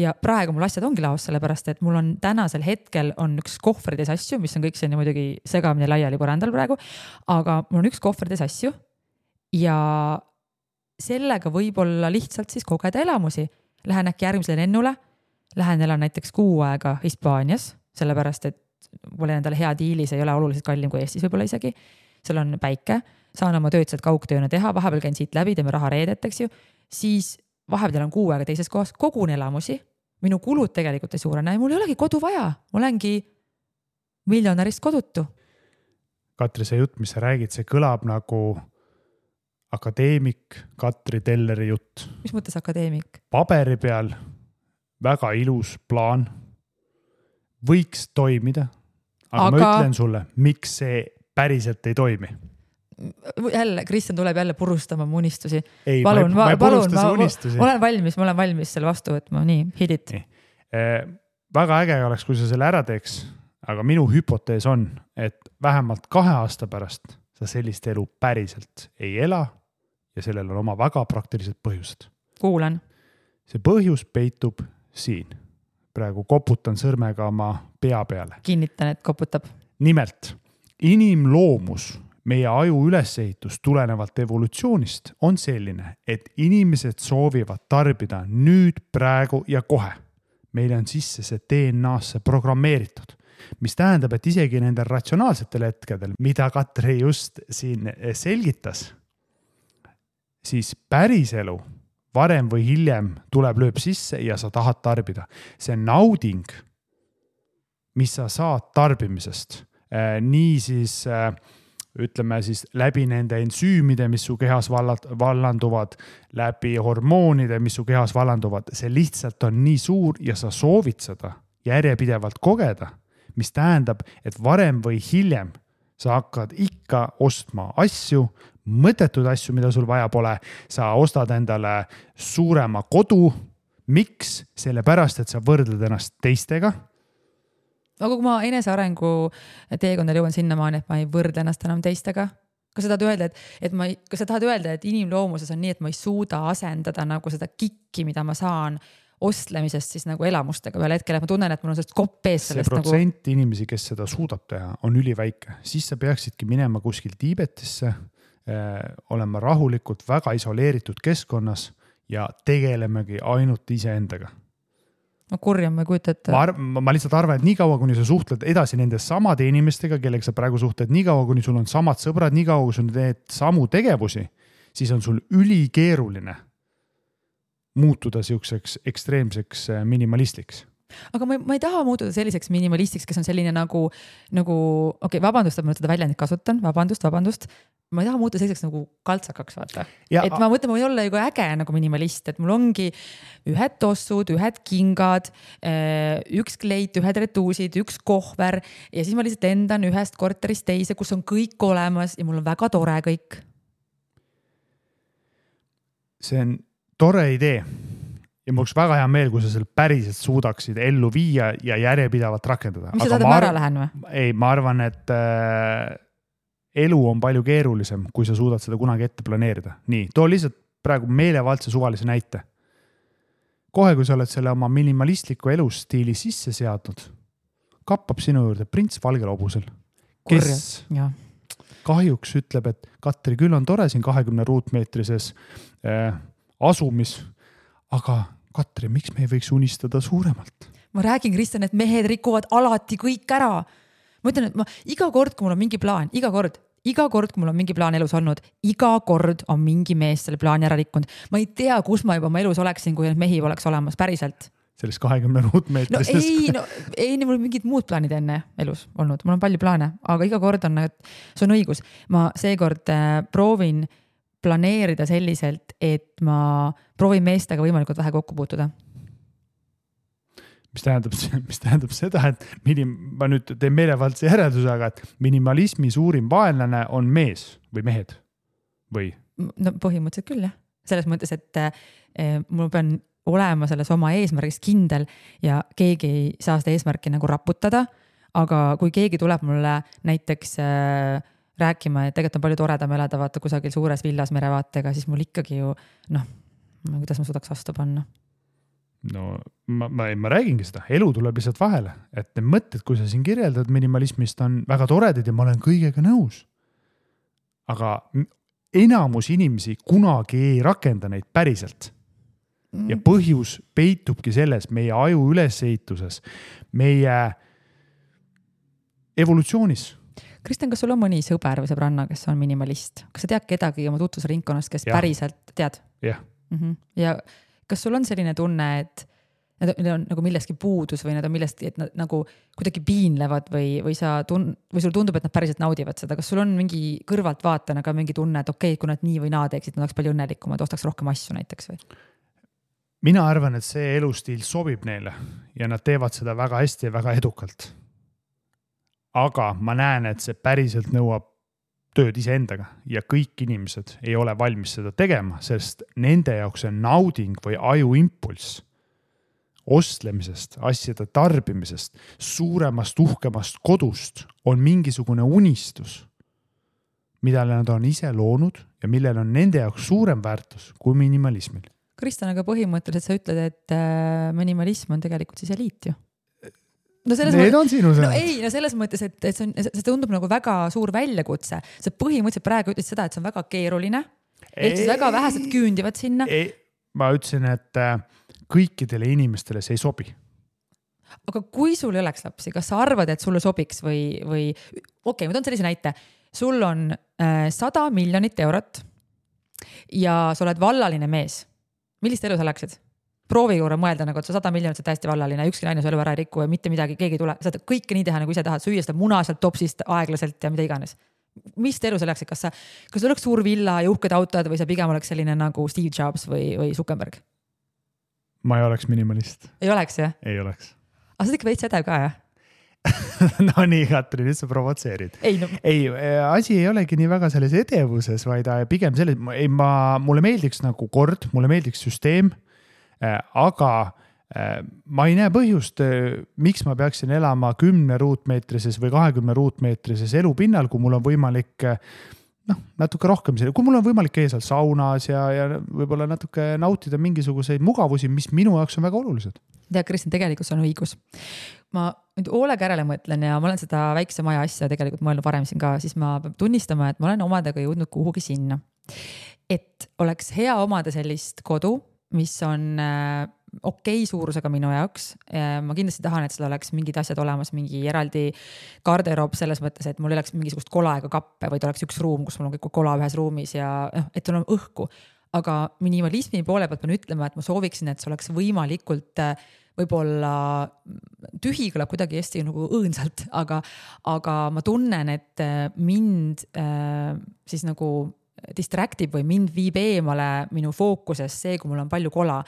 ja praegu mul asjad ongi laos, sellepärast, et mul on tänasel hetkel on üks kohvrides asju, mis on kõik selline muidugi segamine laiali põrandal praegu, aga mul on üks kohvrides asju ja sellega võib-olla lihtsalt siis kogeda elamusi. Lähen äkki järgmisele lennule, lähen elan näiteks 6 aega Hispaanias, sellepärast, et mul endale hea diili, see ei ole oluliselt kallim kui Eestis võib-olla isegi. Seal on päike, saan oma tööd sealt kaugtööna teha, vahepeal käin siit läbi, teeme raha reedet, eks ju. Siis vahepeal on 6 aega teises kohas, kogun elamusi, minu kulud tegelikult ei suurene ja mul ei olegi kodu vaja, ma olengi miljonärist kodutu.
Katri, see jutt, mis sa räägid, see kõlab nagu akadeemik Katri Telleri jutt.
Mis mõttes akadeemik?
Paberi peal väga ilus plaan, võiks toimida, aga ma ütlen sulle, miks see päriselt ei toimi.
Jälle, Kristjan tuleb jälle purustama mu unistusi.
Ei,
palun,
ma ei purusta su unistusi.
Ma olen valmis selle vastu võtma, nii, hit it.
Väga äge oleks, kui sa selle ära teeks, aga minu hüpotees on, et vähemalt 2 aasta pärast sa sellist elu päriselt ei ela ja sellel on oma väga praktilised põhjused.
Kuulan.
See põhjus peitub siin. Praegu koputan sõrmega oma pea peale.
Kinnitan, et koputab.
Nimelt, inimloomus, meie aju ülesehitus tulenevalt evolutsioonist on selline, et inimesed soovivad tarbida nüüd, praegu ja kohe. Meil on sisse see DNA-sse programmeeritud, mis tähendab, et isegi nendel ratsionaalsetel hetkedel, mida Katri just siin selgitas, siis päris elu varem või hiljem lööb sisse ja sa tahad tarbida. See nauding, mis sa saad tarbimisest, nii siis ütleme siis läbi nende ensüümide, mis su kehas vallanduvad, läbi hormoonide, mis su kehas vallanduvad, see lihtsalt on nii suur ja sa soovid seda järjepidevalt kogeda, mis tähendab, et varem või hiljem sa hakkad ikka ostma asju, mõttetud asju, mida sul vaja pole, sa ostad endale suurema kodu. Miks? Sellepärast, et sa võrdled ennast teistega.
Aga kui ma enesearengu teekondal jõuan sinnamaani, et ma ei võrdle ennast enam teistega, kas sa tahad öelda, et inimloomuses on nii, et ma ei suuda asendada nagu seda kikki, mida ma saan ostlemisest siis nagu elamustega peale hetkel, et ma tunnen, et mul on sellest kopp ees sellest.
See protsent inimesi, kes seda suudab teha, on üliväike. Siis sa peaksidki minema kuskil Tiibetisse, olema rahulikult väga isoleeritud keskkonnas ja tegelemegi ainult iseendaga.
Ma kurjam, ma ei kujuta, et...
Ma lihtsalt arvan, et nii kaua, kuni sa suhtled edasi nende samade inimestega, kellega sa praegu suhtled, nii kaua, kuni sul on samad sõbrad, nii kaua, kui sul teed samu tegevusi, siis on sul ülikeeruline muutuda siukseks ekstreemseks minimalistliks.
Aga ma ei taha muutuda selliseks minimalistiks, kes on selline nagu vabandust, et ma seda väljendit kasutan, vabandust. Ma ei taha muutuda selliseks nagu kaltsakaks, vaata. Et ma mõtlen, ma võin olla ju äge nagu minimalist, et mul ongi ühed tossud, ühed kingad, üks kleit, ühed retuusid, üks kohver ja siis ma lihtsalt lendan ühest korterist teise, kus on kõik olemas ja mul on väga tore kõik. See
on tore idee. Ja mul oleks väga hea meel, kui sa seal päriselt suudaksid ellu viia ja järjepidavalt rakendada.
Mis sa tahad, ma ära lähen või?
Ei, ma arvan, et elu on palju keerulisem, kui sa suudad seda kunagi ette planeerida. Nii, too lihtsalt praegu meelevaldse suvalise näite. Kohe, kui sa oled selle oma minimalistliku elustiili sisse seadnud, kappab sinu juurde prints valgel hobusel, kes kahjuks ütleb, et Katri, küll on tore siin 20 ruutmeetrises asumis, aga Katri, miks me ei võiks unistada suuremalt?
Ma räägin, Kristjan, et mehed rikuvad alati kõik ära. Ma ütlen, et iga kord, kui mul on mingi plaan, iga kord, kui mul on mingi plaan elus olnud, iga kord on mingi mees selle plaani ära rikkunud. Ma ei tea, kus ma juba oma elus oleksin, kui need mehi oleks olemas päriselt.
Selles 20 ruutmeetrises.
Ei, mul on mingid muud plaanid enne elus olnud. Mul on palju plaane, aga iga kord on, et see on õigus. Ma seekord proovin planeerida selliselt, et ma proovin meestega võimalikult vähe kokku puutuda.
Mis tähendab seda, et ma nüüd teen meelevaldse järelduse, aga et minimalismi suurim vaenlane on mees või mehed või?
No põhimõtteliselt küll, jah. Selles mõttes, et mul pean olema selles oma eesmärgis kindel ja keegi ei saa seda eesmärki nagu raputada, aga kui keegi tuleb mulle näiteks rääkima, et tegelikult on palju toredam elada vaata kusagil suures villas merevaatega, siis mul ikkagi ju, kuidas ma suudaks vastu panna?
No ma räägingi seda, elu tuleb lihtsalt vahele, et need mõtted, kui sa siin kirjeldad minimalismist, on väga toredad ja ma olen kõigega nõus. Aga enamus inimesi kunagi ei rakenda neid päriselt. Ja põhjus peitubki selles meie aju ülesehituses, meie evolutsioonis.
Kristjan, kas sul on mõni sõber või sõbranna, kes on minimalist? Kas sa tead kedagi oma tutvusringkonnast, kes päriselt tead?
Jah.
Ja kas sul on selline tunne, et need on nagu milleski puudus või need on millestki, et nad nagu kuidagi piinlevad või sul tundub, et nad päriselt naudivad seda? Kas sul on mingi kõrvalt vaatena ka mingi tunne, et okei, kui nad nii või naa teeksid, nad oleks palju õnnelikumad, ostaks rohkem asju näiteks või?
mina arvan, et see elustiil sobib neile ja nad teevad seda väga hästi ja väga edukalt. Aga ma näen, et see päriselt nõuab tööd iseendaga ja kõik inimesed ei ole valmis seda tegema, sest nende jaoks on nauding või ajuimpulss ostlemisest, asjade tarbimisest, suuremast, uhkemast kodust on mingisugune unistus, mida nad on ise loonud ja millel on nende jaoks suurem väärtus kui minimalismil.
Kristjan, aga põhimõtteliselt sa ütled, et minimalism on tegelikult siis eliit ju. No
Need on sinu sõnad.
Selles mõttes, et see tundub nagu väga suur väljakutse. Sa põhimõtteliselt praegu ütlesid seda, et see on väga keeruline. Ehk siis väga vähesed küündivad sinna.
Ma ütlesin, et kõikidele inimestele see ei sobi.
Aga kui sul ei oleks lapsi, kas sa arvad, et sulle sobiks või okei, ma toon sellise näite. Sul on 100 miljonit eurot ja sa oled vallaline mees. Millist elu sa läksid? Proovi juurde mõelda, nagu, et sa 100 miljonit, sa täiesti vallaline, ükski naine su elu ära ei riku ja mitte midagi, keegi ei tule. Saad kõike nii teha, nagu ise tahad, süüa seda muna sealt topsist aeglaselt ja mida iganes. Mis elu sa läksid? Kas oleks suur villa ja uhked autod või sa pigem oleks selline nagu Steve Jobs või Zuckerberg?
Ma ei oleks minimalist.
Ei oleks, jah?
Ei oleks.
Aga sa ikka veits edev ka, jah?
No nii, Katri, nüüd sa provotseerid. Ei, asi ei olegi nii väga selles edevuses, vaid pigem selles, mulle meeldiks nagu kord, mulle meeldiks süsteem, aga ma ei näe põhjust, miks ma peaksin elama 10 ruutmeetrises või 20 ruutmeetrises elupinnal, kui mul on võimalik natuke rohkem, kui mul on võimalik käia seal saunas ja võib-olla natuke nautida mingisuguseid mugavusi, mis minu jaoks on väga olulised.
Tea, Kristjan, tegelikult on õigus. Ma nüüd hoolega järele mõtlen ja ma olen seda väikse maja asja tegelikult mõelnud varem siin ka, siis ma pean tunnistama, et ma olen omadega jõudnud kuhugi sinna. Et oleks hea omada sellist kodu, mis on okei suurusega minu jaoks. Ma kindlasti tahan, et seal oleks mingid asjad olemas, mingi eraldi garderoob selles mõttes, et mul ei oleks mingisugust kola ega kappe, vaid oleks üks ruum, kus mul on kõik kola ühes ruumis ja et sul on õhku. Aga minimalismi poole pealt pean ütlema, et ma sooviksin, et see oleks võimalikult võib-olla tühi kõlab kuidagi hästi nagu õõnsalt, aga ma tunnen, et mind siis nagu distraktib või mind viib eemale minu fookusest see, kui mul on palju kola.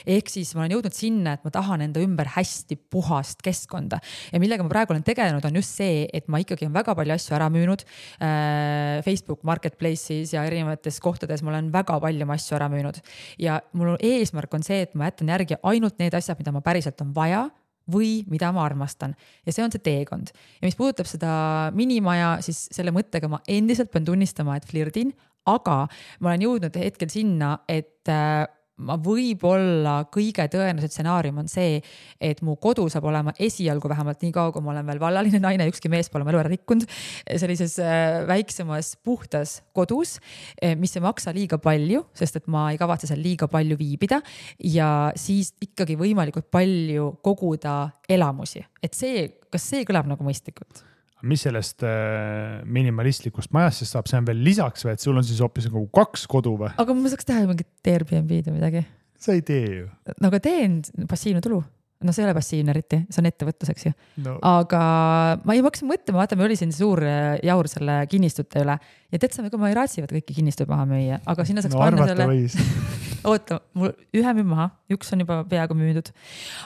Ehk siis ma olen jõudnud sinna, et ma tahan enda ümber hästi puhast keskkonda. Ja millega ma praegu olen tegelenud, on just see, et ma ikkagi on väga palju asju ära müünud. Facebook Marketplace'is ja erinevates kohtades ma olen väga palju asju ära müünud. Ja mul eesmärk on see, et ma jätan järgi ainult need asjad, mida ma päriselt on vaja või mida ma armastan. Ja see on see teekond. Ja mis puudutab seda minimaja, siis selle mõttega ma endiselt pean tunnistama, et flirdin, aga ma olen jõudnud hetkel sinna, et ma võib-olla kõige tõenäoliselt stsenaarium on see, et mu kodu saab olema esialgu vähemalt nii kaua, kui ma olen veel vallaline naine, ükski mees pole elu ära rikkunud, sellises väiksemas puhtas kodus, mis ei maksa liiga palju, sest et ma ei kavatse seal liiga palju viibida ja siis ikkagi võimalikult palju koguda elamusi. Et kas see kõlab nagu mõistlikult?
Mis sellest minimalistlikust majast siis saab, see on veel lisaks või, et sul on siis hoopis nagu 2 kodu või?
Aga ma saaks teha mingit Airbnb-d või midagi.
Sa ei tee ju.
No aga teen passiivne tulu. No see ei ole passiivne eriti, see on ettevõtluseks ju. No. Aga ma ei hakkasin mõtlema, vaata, me oli siin suur jaur selle kinnistute üle ja teedsame, kui ma ei raatsivad kõiki kinnistuid maha müüa, aga sinna saaks panna selle... Oota, mul ühe müü maha, üks on juba peaaegu müüdud,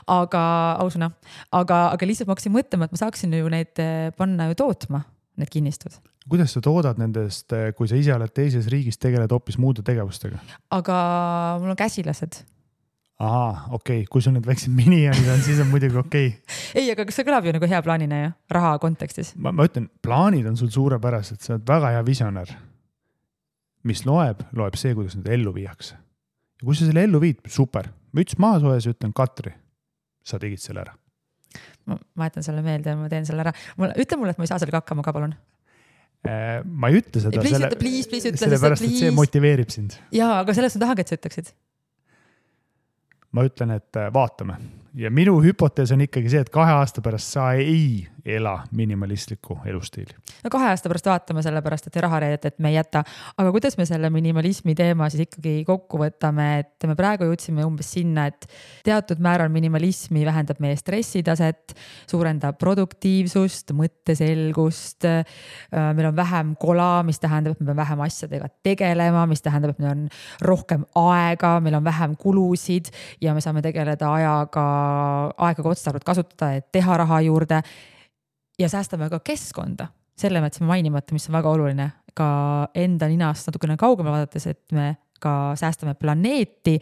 aga ausuna, aga lihtsalt ma hakkasin mõtlema, et ma saaksin ju neid panna ju tootma, need kinnistud.
Kuidas sa toodad nendest, kui sa ise oled teises riigis, tegeled hoopis muude tegevustega?
Aga mul on käsilased.
Aha, okei. Kui sul need väiksed minijonid on, siis on muidugi okei.
Ei, aga kas see kõlab ju nagu hea plaanina ja raha kontekstis?
Ma ütlen, plaanid on sul suurepärased, sa oled väga hea visionär. Mis loeb see, kuidas need ellu viiakse. Ja kui sa selle ellu viid, super. Müts maha soes ja ütlen, Katri, sa tegid selle ära.
Ma jätan selle meelde ja ma teen selle ära. Ütle mulle, et ma ei saa sellega hakkama ka, palun.
Ma ei ütle seda, sellepärast, et see motiveerib sind.
Jaa, aga sellest ma tahangi, et sa ütleksid.
Ma ütlen, et vaatame. Ja minu hüpotees on ikkagi see, et 2 aasta pärast sa ei ela minimalistlikku elustiili.
No 2 aasta pärast vaatame selle pärast, et rahareedet, et me ei jäta. Aga kuidas me selle minimalismi teema siis ikkagi kokku võtame, et me praegu jõudsime umbes sinna, et teatud määral minimalismi vähendab meie stressitaset, suurendab produktiivsust, mõtteselgust. Meil on vähem kola, mis tähendab, et me peame vähem asjadega tegelema, mis tähendab, et meil on rohkem aega, meil on vähem kulusid ja me saame tegeleda aega otstarbelt kasutada, et teha raha juurde ja säästame ka keskkonda. Selle me jätsime mainimata, mis on väga oluline ka enda ninast natukene kaugemale vaadates, et me ka säästame planeeti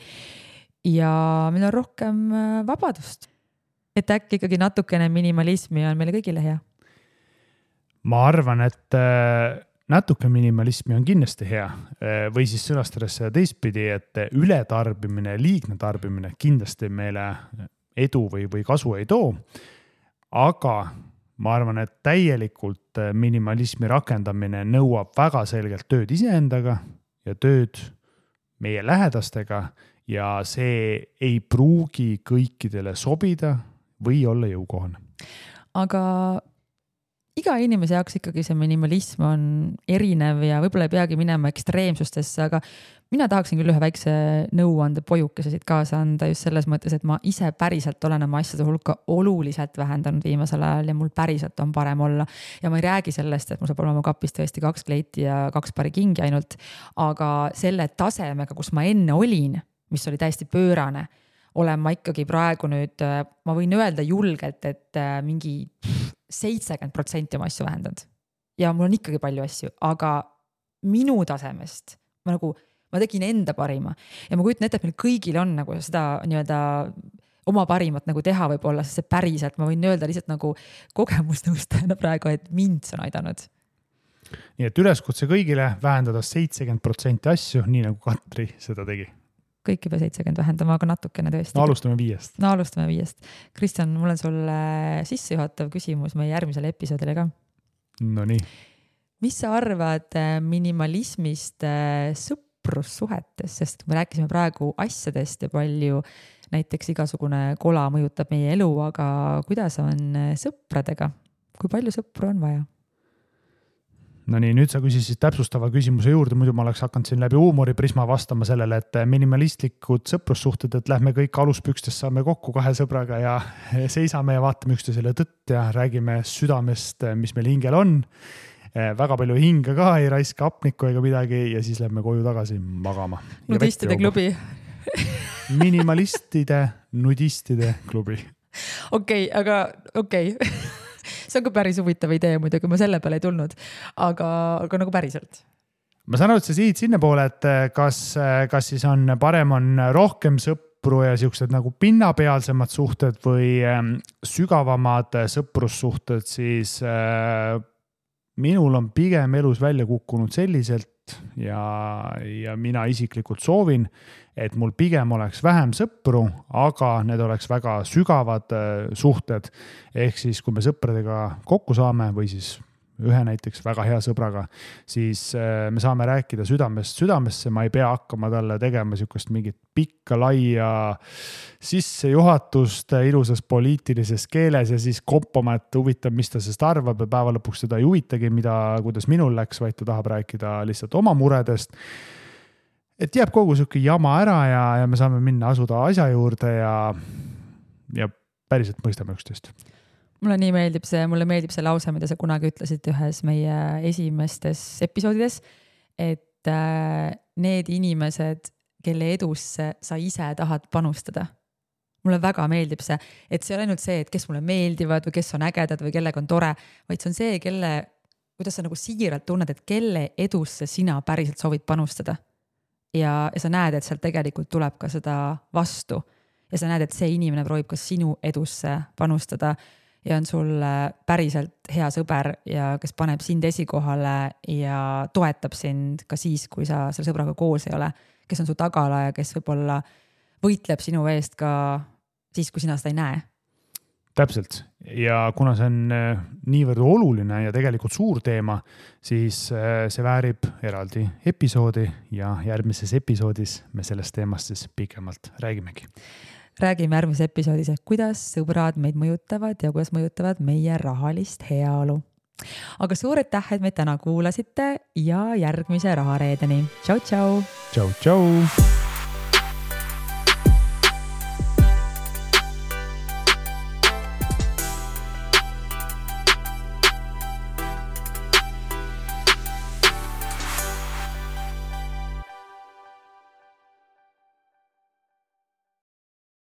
ja meil on rohkem vabadust. Et äkki ikkagi natukene minimalismi on meile kõigile hea.
Ma arvan, et natuke minimalismi on kindlasti hea või siis sõnastades teistpidi, et ületarbimine, liigne tarbimine kindlasti meile edu või kasu ei too. Aga ma arvan, et täielikult minimalismi rakendamine nõuab väga selgelt tööd iseendaga ja tööd meie lähedastega ja see ei pruugi kõikidele sobida või olla jõukohane.
Aga iga inimese jaoks ikkagi see minimalism on erinev ja võib-olla ei peagi minema ekstreemsustesse, aga mina tahaksin küll ühe väikse nõuande pojukese siit kaasa anda just selles mõttes, et ma ise päriselt olen oma asjade hulka oluliselt vähendanud viimasel ajal ja mul päriselt on parem olla. Ja ma ei räägi sellest, et mul saab olema kapis tõesti 2 kleiti ja 2 pari kingi ainult, aga selle tasemega, kus ma enne olin, mis oli täiesti pöörane, olen ma ikkagi praegu nüüd, ma võin öelda julgelt, et mingi 70% oma asju vähendanud. Ja mul on ikkagi palju asju, aga minu tasemest ma tegin enda parima ja ma kujutan ette, et meil kõigil on nagu seda nii-öelda oma parimat nagu teha võib-olla, sest see päriselt, ma võin öelda lihtsalt nagu kogemusnõustajana praegu, et mind see on aidanud.
Nii et üleskutse kõigile vähendada 70% asju, nii nagu Katri seda tegi.
Kõik juba 70 vähendama, aga natukene tõesti.
No alustame 5.
No alustame 5. Kristjan, mul on sulle sissejuhatav küsimus meie järgmisele episoodile ka.
No nii.
Mis sa arvad minimalismist sõprussuhetes, sest me rääkisime praegu asjadest ja palju näiteks igasugune kola mõjutab meie elu, aga kuidas on sõpradega? Kui palju sõpru on vaja?
No nii, nüüd sa küsisid täpsustava küsimuse juurde, muidu ma oleks hakanud siin läbi huumoriprisma vastama sellele, et minimalistlikud sõprussuhted, et lähme kõik aluspükstes saame kokku 2 sõbraga ja seisame ja vaatame üksteisele tõtt ja räägime südamest, mis meil hingel on. Väga palju hinga ka, ei raiska hapnikku ega midagi ja siis lähme koju tagasi magama.
Nudistide klubi.
Nudistide klubi.
Okei. See on ka päris huvitav idee muidugi, ma selle peale ei tulnud, aga nagu päriselt.
Ma saan aru, et sa siit sinna poole, et kas siis on parem on rohkem sõpru ja siuksed nagu pinnapealsemad suhted või sügavamad sõprussuhted, siis minul on pigem elus välja kukkunud selliselt ja mina isiklikult soovin, et mul pigem oleks vähem sõpru, aga need oleks väga sügavad suhted. Ehk siis, kui me sõpradega kokku saame või siis ühe näiteks väga hea sõbraga, siis me saame rääkida südamest südamesse, ma ei pea hakkama talle tegema sükust mingit pikka laia sissejuhatust ilusas poliitilises keeles ja siis kompama, et huvitav, mis ta sest arvab ja päeva lõpuks seda ei huvitagi, kuidas minul läks, vaid ta tahab rääkida lihtsalt oma muredest. Et jääb kogu sükke jama ära ja me saame minna asuda asja juurde ja päriselt mõistame üksteist.
Mulle meeldib see lause, mida sa kunagi ütlesid ühes meie esimestes episoodides, et need inimesed, kelle edusse sa ise tahad panustada. Mulle väga meeldib see, et see ei ole ainult see, et kes mulle meeldivad või kes on ägedad või kellega on tore, vaid see on see, kuidas sa nagu siiralt tunned, et kelle edusse sina päriselt soovid panustada. Ja sa näed, et sealt tegelikult tuleb ka seda vastu. Ja sa näed, et see inimene proovib ka sinu edusse panustada ja on sul päriselt hea sõber ja kes paneb sind esikohale ja toetab sind ka siis, kui sa selle sõbraga koos ei ole, kes on su tagala ja kes võib-olla võitleb sinu eest ka siis, kui sina seda ei näe.
Täpselt. Ja kuna see on niivõrd oluline ja tegelikult suur teema, siis see väärib eraldi episoodi ja järgmises episoodis me sellest teemast siis pikemalt räägimegi.
räägime järgmises episoodis, et kuidas sõbrad meid mõjutavad ja kuidas mõjutavad meie rahalist heaolu. Aga suur aitäh, et meid täna kuulasite ja järgmise Rahareedeni. Tšau, tšau!
Tšau, tšau!